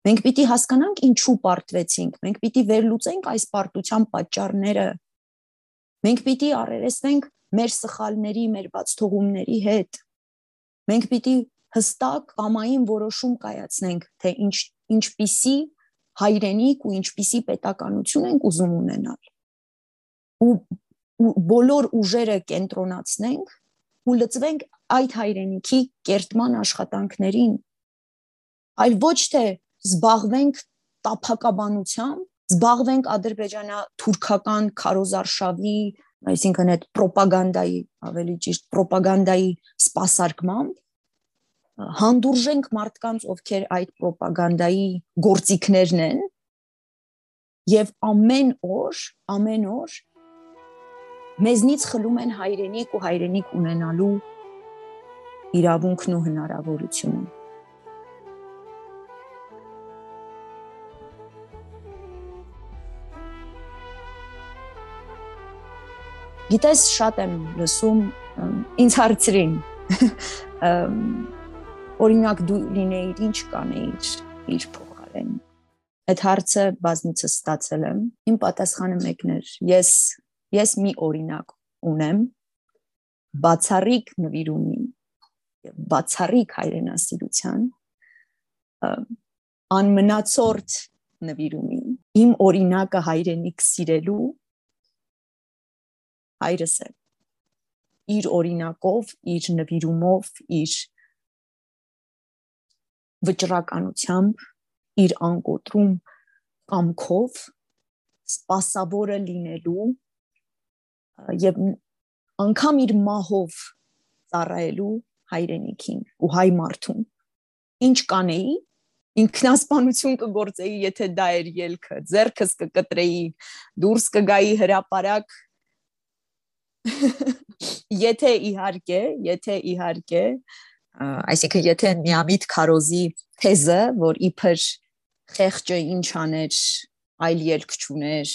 Մենք պիտի հասկանանք ինչու պարտվեցինք, մենք պիտի վերլուծենք այս պարտության պատճառները։ Մենք պիտի առերեսվենք մեր սխալների, մեր բացթողումների հետ։ Մենք պիտի հստակ կամային որոշում կայացնենք, թե ինչպիսի հայրենիք ու ինչպիսի պետականություն ենք ուզում ունենալ։ Ու բոլոր ուժերը կենտրոնացնենք ու լծվենք այդ հայրենիքի կերտման աշխատանքներին, այլ ոչ թե զբաղվենք տափակաբանությամբ, զբաղվենք ադրբեջանա-թուրքական քարոզարշավի, այսինքն այդ պրոպագանդայի, ավելի ճիշտ պրոպագանդայի սպասարկմամբ, հանդուրժենք մարդկանց, ովքեր այդ ռոպագանդայի գործիքներն են, եւ ամեն օր մեզնից խլում են հայրենիք ու հայրենիք ունենալու իրավունքն ու հնարավորությունը։ Գիտես, շատ եմ լսում, ինձ հարցրին, օրինակ դու լինեիր, ինչ կանեիր իր փոխարեն։ Այդ հարցը բազմիցս ստացել եմ, իմ պատասխանը մեկն էր, ես մի օրինակ ունեմ, բացառիկ նվիրումի եւ բացառիկ հայրենասիրության, անմնացորդ նվիրումի, իմ օրինակը հայրենիք սիրելու հայրս է, իր օրինակով, իր նվիրումով, իր վճռականությամբ, իր անկոտրում կամքով, սպասավորը լինելու եւ անգամ իր մահով ծառայելու հայրենիքին ու հայ մարդուն։ Ինչ կանեի, ինքնասպանություն կգործեի, եթե դա էր ելքը, ձեռքս կկտրեի, դուրս կգայի հրապարակ, եթե իհարկե, այսինքն եթե միամիտ քարոզի թեզը, որ իբր խեղճը ինչ աներ, այլ ելք չուներ,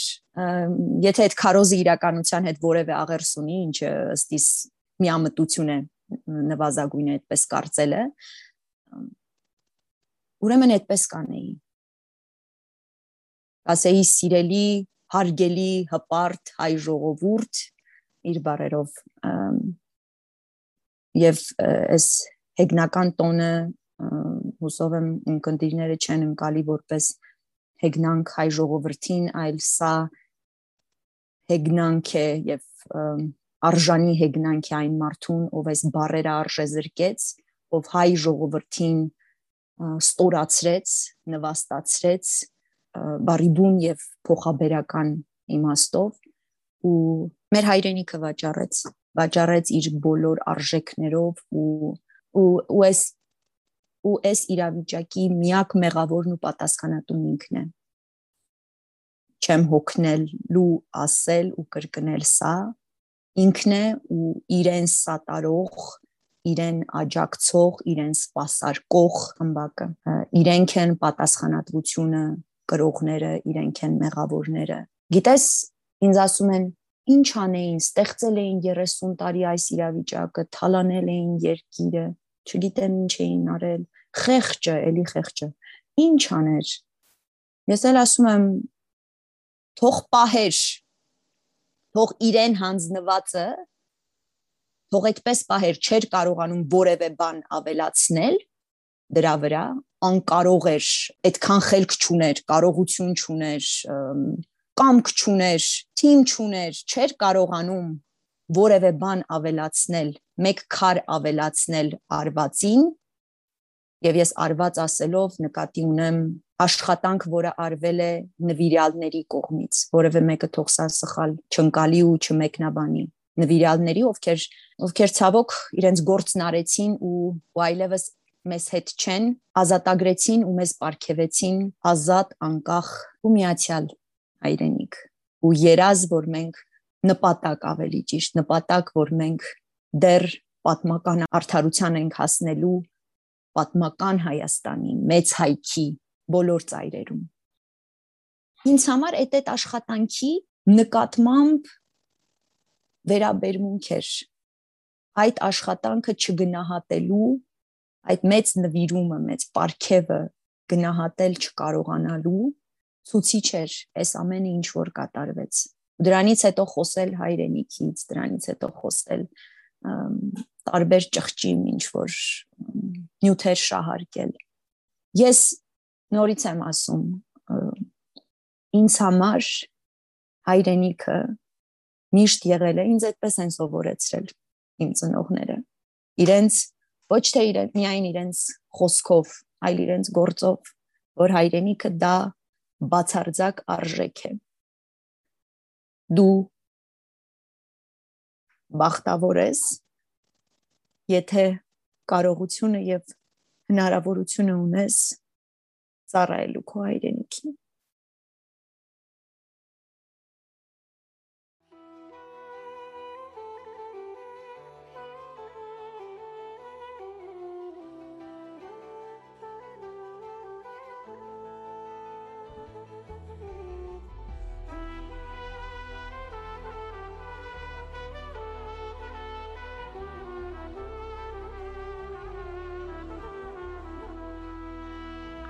եթե այդ քարոզը իրականության հետ որևէ աղերս ունի, ինչը ըստիս միամտություն է, նվազագույն է այդպես կարծելը, ուրեմն այդպես կանեի։ Ասեի սիրելի, հարգելի, հպարտ հայ ժողովուրդ, իր բարերով եւ այս հեգնական տոնը հուսով եմ ընկերները չեն ընկալի որպես հեգնանք հայ ժողովրդին, այլ սա հեգնանք է եւ արժանի հեգնանք է այն մարդուն, ով այս բարերը արժեզրկեց, ով հայ ժողովրդին ստորացրեց, նվաստացրեց բարիբուն եւ փոխաբերական իմաստով ու մեր հայրենիքը վաճառեց իր բոլոր արժեքներով ու այս իրավիճակի միակ մեղավորն ու պատասխանատուն ինքն է։ Չեմ հոգնելու ասել ու կրկնել սա, ինքն է ու իրեն սատարող, իրեն աջակցող, իրեն սպասարկող խմբակը, իրենք են պատասխանատվությունը կրողները, իրենք են մեղավորները։ Գիտես, ինձ ասում են, ինչ անեին, ստեղծել էին 30 տարի այս իրավիճակը, թալանել էին երկիրը, չգիտեմ ինչ էին արել, խեղճը, էլի խեղճը, ինչ աներ։ Ես էլ ասում եմ, թող պահեր, թող իրեն հանձնվածը, թող այդպես պահեր, չէր կարողանում որևէ բան ավելացնել դրա վրա, անկարող էր, այդքան խելք չուներ, կարողություն չուներ, կամք չուներ, թիմ չուներ, չէր կարողանում որևէ բան ավելացնել, մեկ քար ավելացնել արվածին, եւ ես արված ասելով նկատի ունեմ աշխատանք, որը արվել է նվիրյալների կողմից, որևէ մեկը թող սա սխալ չընկալի ու չմեկնաբանի, նվիրյալների, ովքեր ցավոք իրենց գործն արեցին ու այլևս մեզ հետ չեն, ազատագրեցին ու մեզ պարգևեցին ազատ, անկախ ու միացյալ հայրենիք ու երազ, որ մենք նպատակ ավելի ճիշտ, նպատակ, որ մենք դեռ պատմական արդարության ենք հասնելու պատմական Հայաստանի մեծ հայքի բոլոր ծայրերում։ Ինձ համար այդ աշխատանքի նկատմամբ վերաբերմունք էր այդ աշխատանքը չգնահատելու, այդ մեծ նվիրումը, մեծ պարգևը գնահատել չկարողանալու ցուցիչ էր այս ամենը ինչ որ կատարվեց։ Դրանից հետո խոսել հայրենիքից, դրանից հետո խոսել տարբեր ճղճիմ ինչ որ նյութեր շահարկել։ Ես նորից եմ ասում, ինձ համար հայրենիքը միշտ եղել է, ինձ այդպես են սովորեցրել իմ ծնողները։ Իրենց ոչ թե միայն իրենց խոսքով, այլ իրենց գործով, որ հայրենիքը դա բացարձակ արժեք է։ Դու բախտավոր ես, եթե կարողությունը եւ հնարավորությունը ունես ծառայելու քո հայրենիքին։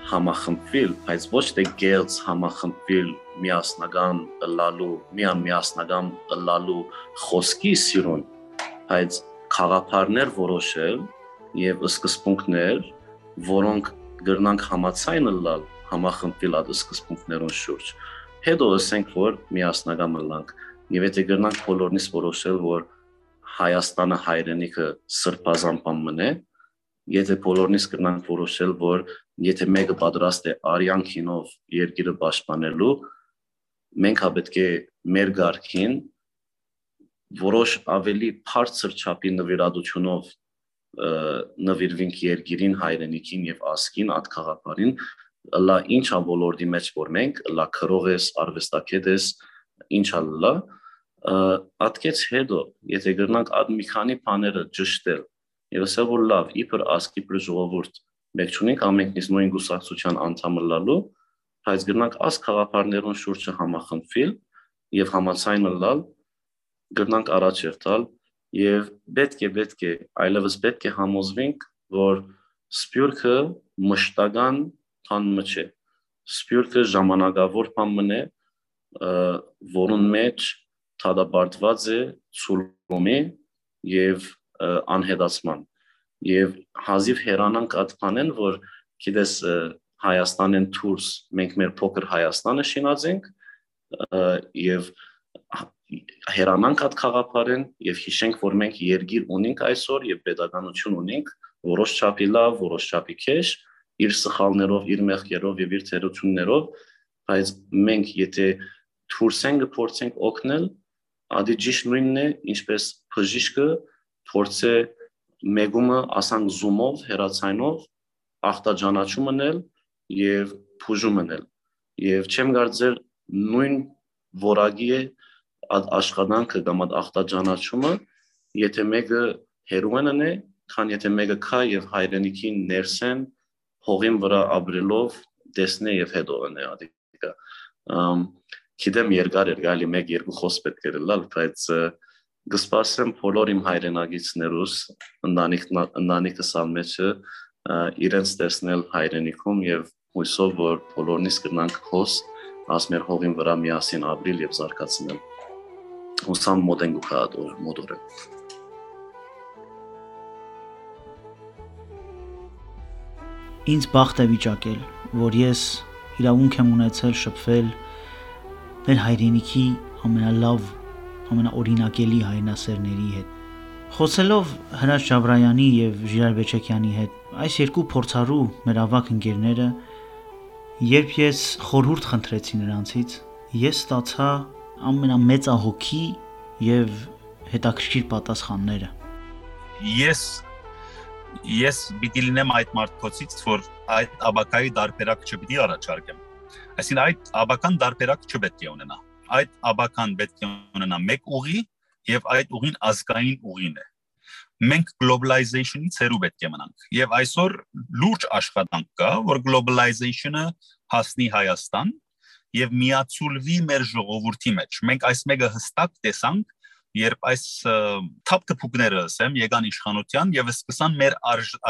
Համախմբվել, բայց ոչ թե գերց համախմբվել միասնական միասնական լալու խոսքի սիրուն, բայց խաղապարներ որոշել եւ սկզբունքներ, որոնք գրնանք համացայն լալ համախմբվել այդ սկզբունքներուն շուրջ։ Հետո ասենք, որ միասնական մնանք եւ եթե գրնանք բոլորնից որոշել, որ Հայաստանը հայրենիքը սրբազան մնե, եթե բոլորնից կրնանք որոշել, որ եթե մեկը պատրաստ է արյան քինով երկիրը պաշտպանելու, մենք պետք է մեր գարքին որոշ ավելի բարձր չափի նվիրատությունով նվիրվենք երկիրին, հայրենիքին եւ ազգին, այդ խաղապարին, լա ինչա ոլորտի մեջ որ մենք, լա քրող ես, արվեստագետ ես, ինչա լա, ատկեց հետո, եթե գրնանք այդ մի քանի բաները ճշտել եւ ասել որ լավ, իբր ազգի բր ժողովուրդ մենք չունենք ամենքնից նույն գուսակցության անդամ լալու, բայց գրնանք աս խաղապարներուն շուրջը համախմբվել եւ համացայն լալ, գրնանք առաջերտալ եւ պետք է այլևս պետք է համոզվենք, որ սփյուռքը մշտական բան չէ, սփյուռքը ժամանակավոր բան մնե, որուն մեջ թադաբարտված է ցուլումի եւ անհետացման եւ հազիվ հերանանք այդ բանեն, որ գիտես Հայաստանեն դուրս մենք մեր փոքր Հայաստանը շինածենք եւ հերանանք այդ խաղապարեն եւ հիշենք, որ մենք երկիր ունենք այսօր եւ պետականություն ունենք, որոշ չափի լավ, որոշ չափի քեշ, իր սխալներով, իր մեղքերով եւ իր թերություններով, բայց մենք եթե դուրս ենք փորձենք օգնել, ադի ճիշտ նույնն է, ինչպես բժիշկը փորձե մեգումը ասանք զումով, հերացայնով ախտաջանաչում մնել եւ փուժում մնել եւ չեմ կարծել նույն որակի է աշխատանքը կամ ախտաջանաչումը, եթե մեկը հերոինն է, քան եթե մեկը քա եւ հայրենիքին ներսեն հողին վրա ապրելով տեսնե եւ հետո ընե ադիկա գիտեմ երկար գալի 1-2 խոսք պետք է լալ, բայց գսպասեմ բոլոր իմ հայրենագիցներուս ընտանիքս ամեջը իրենց տեսնել հայրենիքում եւ հույսով որ բոլորնից կնանք հոս ասմեր հողին վրա միասին ապրիլ եւ զարգացնել հուսամ մոդեն գուքադոր մոդորը ինձ բախտ է վիճակել որ ես իրավունք եմ ունեցել շփվել մեր հայրենիքի ամենալավ ամենաօրինակելի հայրենասերների հետ խոսելով Հրաչ Ջաբրայանի եւ Ժիրայր Բեչեկյանի հետ այս երկու փորձառու մեր ավակ ընկերները երբ ես խորհուրդ խնդրեցի նրանցից ես ստացա ամենամեծահոգի եւ հետաքրքիր պատասխանները ես պիտի լինեմ այդ մարդկոցից որ այդ աբակայի դարբերակ չպիտի առաջարկեմ այսինքն այդ աբական դարբերակ չպետք է ունենա այդ աբական պետք է ունենա մեկ ուղի եւ այդ ուղին ազգային ուղին է մենք globalization-ից հեռու պետք է մնանք եւ այսօր լուրջ աշխատանք կա որ globalization-ը հասնի Հայաստան եւ միացուլվի մեր ժողովրդի մեջ մենք այս մեկը հստակ տեսանք երբ այս թափթփուկները ասեմ եկան իշխանության եւ սկսան մեր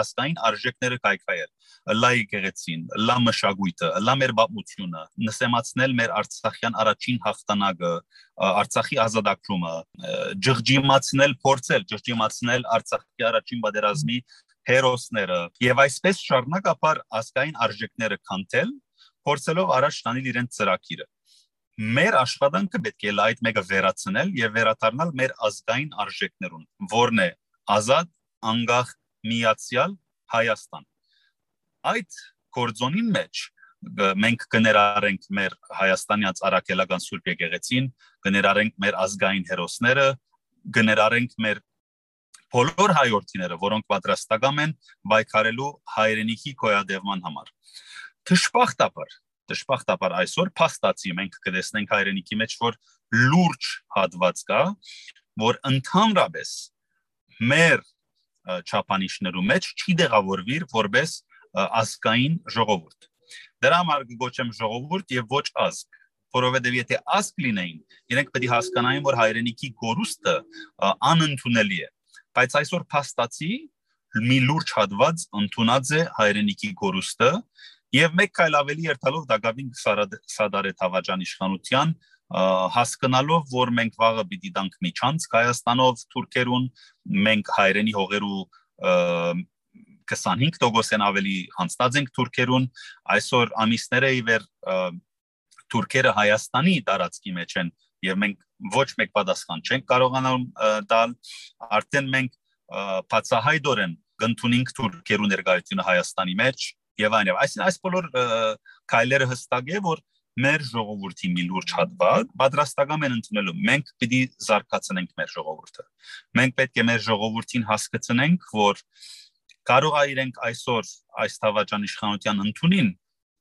ազգային արժեքները կայքայել լա եկեղեցին լա մշակույթը լա մեր բապությունը նսեմացնել մեր արցախյան առաջին հաղթանակը արցախի ազատագրումը ջղջիմացնել արցախի առաջին պատերազմի հերոսները եւ այսպես շարունակապար ազգային արժեքները քանթել փորձելով առաջ տանել իրենց ծրագիրը մեր աշխատանքը պետք է այդ մեկը վերացնել եւ վերադառնալ մեր ազգային արժեքներուն, որն է ազատ, անկախ, միացյալ Հայաստան։ Այդ կորձոնին մեջ մենք կներառենք մեր հայաստանյան արաքելական Սուրբ եկեղեցին, կներառենք մեր ազգային հերոսները, կներառենք մեր բոլոր հայրենիները, որոնք պատրաստական են պայքարելու հայրենիքի գոյատևման համար։ Դժբախտաբար այսօր փաստացի մենք կտեսնենք հայրենիքի մեջ, որ լուրջ հատված կա, որ ընդհանրապես մեր չափանիշներու մեջ չի դեղավորվիր որպես ազգային ժողովուրդ։ Դրա համար կգոչեմ ժողովուրդ եւ ոչ ազգ, որովհետեւ եթե ազգ լինեին, իրենք պետք է հասկանային, որ հայրենիքի գորուստը անընդունելի է, բայց այսօր փաստացի մի լուրջ հատված ընդունած է հայրենիքի գորուստը եւ մեկ քայլ ավելի երթալով Դագավին Սադարեթ Հավաջան իշխանության հասկանալով, որ մենք վաղը պիտի տանք միջանց Հայաստանով թուրքերուն, մենք հայրենի հողերու 25% ավելի հանձնած ենք թուրքերուն, այսօր ամիսները ի վեր թուրքերը Հայաստանի տարածքի մեջ են եւ մենք ոչ մեկ պատասխան չենք կարողանալ տալ, արդեն մենք բացահայտորեն կընդունենք թուրքերու ներկայությունը Հայաստանի մեջ եւ այլն։ Այս բոլոր քայլերը հստակ է, որ մեր ժողովրդի մի լուրջ հատված պատրաստական են ընդունելու, մենք պիտի զարգացնենք մեր ժողովուրդը։ Մենք պետք է մեր ժողովրդին հասկացնենք, որ կարող է իրենք այսօր այս Թավաջան իշխանության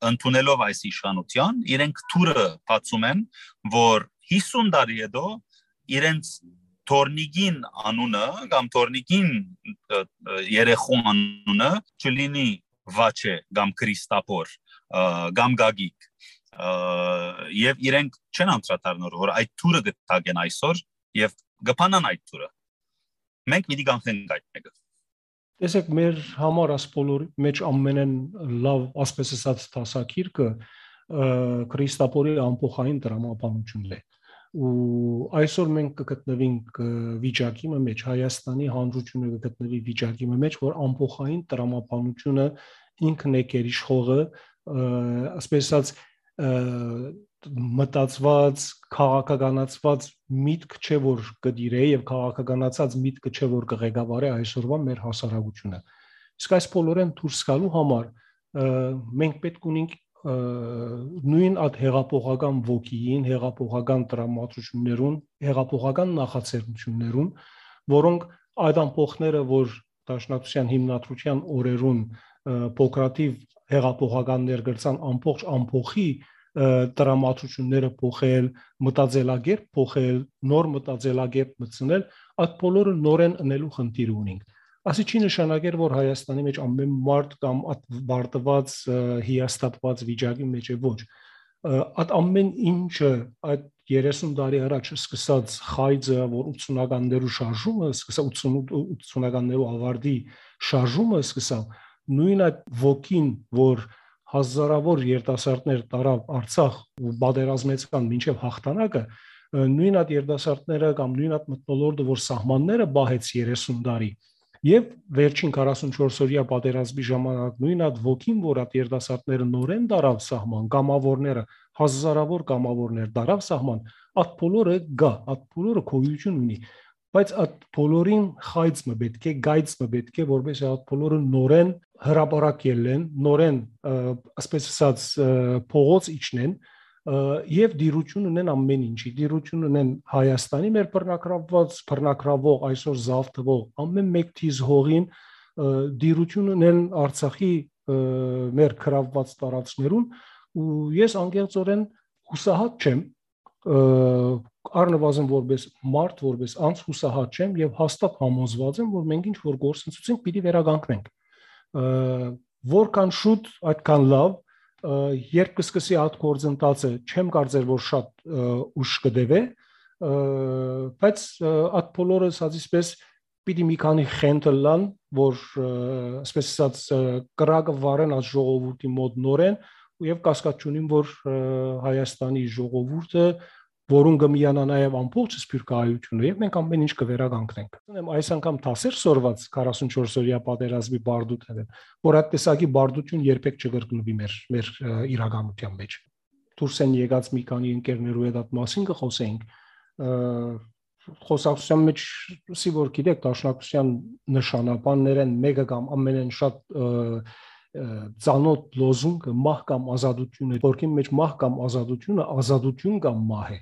ընդունելով այս իշխանության, իրենք թուրը բացում են, որ 50 տարի հետո իրենց Թորնիգին անունը կամ Թորնիգին երեխու անունը չլինի Վաչե կամ Քրիստապոր կամ Գագիկ եւ իրենք չեն անդրադառնոր, որ այդ թուրը գտագեն այսօր եւ գփանան այդ թուրը։ Մենք մի դիգանք այդ մեկը։ Տեսեք, մեր համար աս բոլորի մեջ ամենեն լավ, ասպես ասած, դասակիրքը Քրիստապորի ամփոխային տրամաբանությունն է։ Ու այսօր մենք կգտնվենք վիճակի մեջ, Հայաստանի հանրությունը կգտնվի վիճակի մեջ, որ ամփոխային տրամաբանությունը ինքն է գերիշխողը, ասպես ասած, մտածված, քաղաքականացված միտք չէ, որ կդիրե եւ քաղաքականացած միտքը չէ, որ կղեկավարի այսօրվա մեր հասարակությունը։ Իսկ այս բոլորեն դուրս գալու համար մենք պետք ունենք նույն այդ հեղափոխական ոգիին, հեղափոխական տրամադրություններուն, հեղափոխական նախաձեռնություններուն, որոնք այդ ամփոխները, որ Դաշնակցության հիմնադրության օրերուն փոքրաթիվ հեղափոխականներ գրցան ամփոխի տրամադրությունները փոխել, մտածելակերպ փոխել, նոր մտածելակերպ մտցնել, այդ բոլորը նորեն ընելու խնդիր ունենք։ Ասի չի նշանակեր, որ Հայաստանի մեջ ամեն մարդ կամ բարտված հիաստատված վիճակի մեջ է, ոչ։ Այդ ամեն ինչը այդ 30 տարի առաջ սկսած խայձը, որ 80-ականներու շարժումը, սկսա 80-ականներու ավարտի շարժումը սկսա, նույն այդ ոգին, որ հազարավոր երիտասարդներ տարավ Արցախ ու պատերազմեցան մինչև հաղթանակը, նույն այդ երիտասարդները կամ նույն այդ մթնոլորտը, որ սահմանները բահեց 30 տարի, եւ վերջին 44 օրյա պատերազմի ժամանակ նույն այդ ոգին, որ այդ երիտասարդները նորեն տարավ սահման, կամավորները, հազարավոր կամավորներ տարավ սահման, այդ բոլորը գա, այդ բոլորը գոյություն ունի, բայց այդ բոլորին խայծը պետք է, գայծը պետք է, որպես այդ բոլորը նորեն հրապարակել են, նորեն, ասպես ասած, փողոց իջնեն եւ դիրություն ունեն ամեն ինչի, դիրություն ունեն Հայաստանի մեր բռնակրավող այսօր զավթվող ամեն մեկ թիզ հողին, դիրություն ունեն Արցախի մեր քրավված տարածքներուն, ու ես անկեղծորեն հուսահատ չեմ, առնվազն որպես մարդ, որպես անձ հուսահատ չեմ եւ հաստատ համոզված եմ, որ մենք ինչ որ գործընթացենք պիտի վերականգնենք։ Որքան շուտ, այդքան լավ, երբ կսկսի այդ գործընթացը, չեմ կարծեր, որ շատ ուշ կդեվե, բայց այդ բոլորը ասածիսպես պիտի մի քանի խենթ լան, որ ասպես ասած կրակը վարեն այդ ժողովրդի մոտ նորեն, եւ կասկած չունիմ, որ Հայաստանի ժողովուրդը, որուն կմիանա նաև ամբողջ սփյուռքահայությունը, եւ մենք ամեն ինչ կվերականգնենք։ Այս անգամ դասեր սորված 44 օրյա պատերազմի բարդութները, որ այդ տեսակի բարդություն երբեք չկրկնվի մեր իրականության մեջ։ Դուրս են եկած մի քանի ընկերներու հետ այդ մասին կխոսենք։ Խոսակցության մեջ սի որ գիտեք, Դաշնակցության նշանաբաններն մեկը կամ ամենեն շատ ծանոթ լոզունգը մահ կամ ազատություն է, որքի մեջ մահ կամ ազատությունը ազատություն կամ մահ է։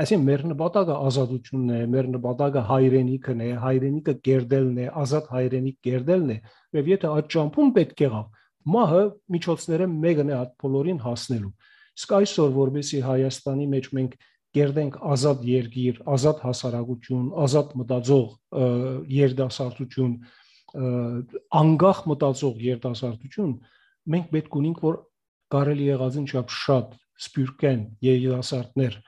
Այսինքն մեր նպատակը ազատությունն է, մեր նպատակը հայրենիքն է, հայրենիքը կերտելն է, ազատ հայրենիք կերտելն է, եւ եթե այդ ճամփուն պետք եղավ, մահը միջոցները մեկն է այդ բոլորին հասնելու։ Իսկ այսօր որովհետեւ Հայաստանի մեջ մենք կերտենք ազատ երկիր, ազատ հասարակություն, ազատ մտածող երիտասարդություն, անկախ մտածող երիտասարդություն, մենք պետք ունենք, որ կարելի եղածին չափ շատ սպյուրքեն երիտասարդներ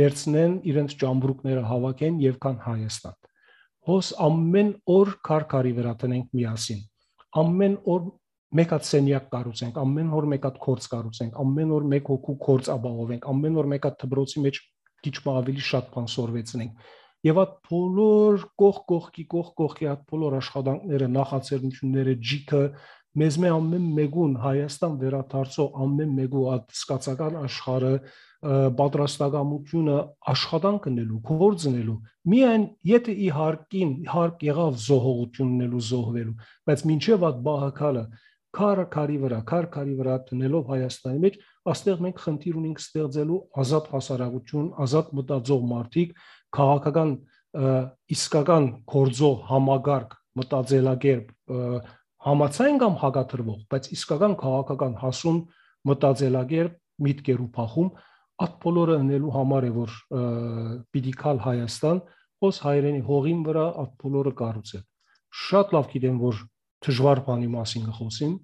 վերցնեն իրենց ճամբրուկները հավաքեն եւ կան Հայաստան։ Հոս ամեն օր քարքարի վրա տնենք միասին։ Ամեն օր մեկ հատ սենյակ կառուցենք, ամեն օր մեկ հատ քորձ կառուցենք, ամեն օր մեկ հոգու քորձ ապահովենք, ամեն օր մեկ հատ դպրոցի մեջ քիչ ավելի շատ բան սորվեցնենք։ Եվ այդ բոլոր կողքի այդ բոլոր աշխատանքները, նախաձեռնությունները, ջիքը մեզ ամեն մեկուն Հայաստան վերադարձող ամեն մեկու այդ սկացական աշխարհը պատրաստակամությունը աշխատանք ունելու, գործ ունելու, միայն եթե իհարկ եղավ զոհողություննելու, զոհվելու, բայց մինչև այդ բահակալը քարի վրա տնելով Հայաստանի մեջ, այստեղ մենք խնդիր ունենք ստեղծելու ազատ հասարակություն, ազատ մտածող մարդիկ, քաղաքական իսկական գործող համագարկ մտածելակերպ համացայն կամ հակադրվող, բայց իսկական քաղաքական հասուն մտածելակերպ միտքեր ու փախում այդ բոլորը ունելու համար է որ պիտի կալ Հայաստան, ոս հայրենի հողին վրա այդ բոլորը կառուցել։ Շատ լավ գիտեմ որ դժվար բանի մասին կխոսեմ,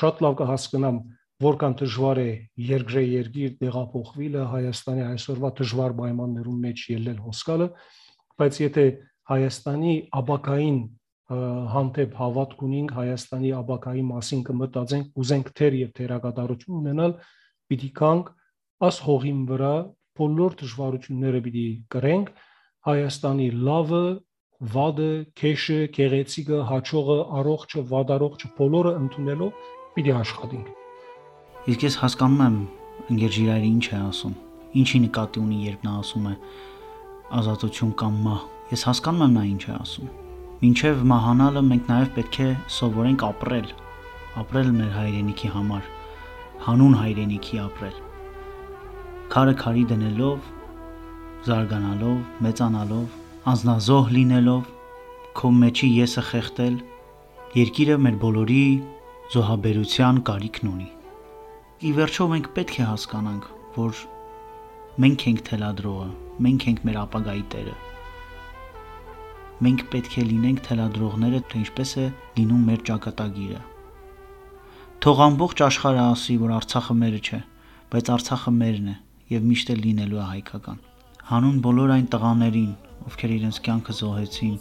շատ լավ կհասկանամ որքան դժվար է երկիր տեղափոխվելը Հայաստանի այսօրվա դժվար պայմաններում մեջ ելնել հոսքալը, բայց եթե Հայաստանի ապակային հանդեպ հավատք ունենք, Հայաստանի ապակայի մասին կմտածենք, ուզենք թեր եւ թերակատարություն ունենալ, պիտի կանք աս հողին վրա բոլոր դժվարությունները պիտի կրենք, Հայաստանի լավը, վադը, քեշը, գեղեցիկը, հաճողը, առողջը, վադարողջը բոլորը ընդունելով պիտի աշխատենք։ Իսկ ես հասկանում եմ ընկեր Ժիրայրը ինչ է ասում, ինչի նկատի ունի երբ նա ասում է ազատություն կամ մահ։ Ես հասկանում եմ նա ինչ է ասում։ Մինչև մահանալը մենք նաև պետք է սովորենք ապրել մեր հայրենիքի համար, հանուն հայրենիքի ապրել։ Քարը քարի դնելով, զարգանալով, մեծանալով, անznազոհ լինելով, քո մեջի եսը խեղտել, երկիրը մեր բոլորի զոհաբերության կարիքն ունի։ Ի վերջո մենք պետք է հասկանանք, որ մենք ենք թելադրողը, մենք ենք մեր ապագայի տերը։ Մենք պետք է լինենք թելադրողները, թե ինչպես է լինում մեր ճակատագիրը։ Թող ամբողջ աշխարհը ասի, որ Արցախը մերը չէ, բայց Արցախը մերն է եւ միշտ էլ լինելու է հայկական։ Հանուն բոլոր այն տղաներին, ովքեր իրենց կյանքը զոհեցին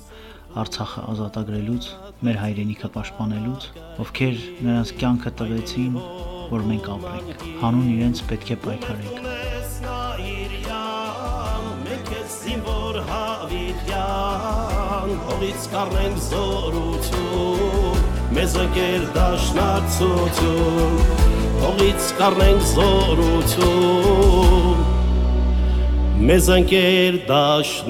Արցախը ազատագրելուց, մեր հայրենիքը պաշտպանելուց, ովքեր նրանց կյանքը տվեցին, որ մենք ապրենք։ Հանուն իրենց պետք է պայքարենք։ Հողից կառնենք զորություն, մեզ ընկեր դաշնակցություն, հողից կառնենք զորություն, մեզ ընկեր դաշնակցություն։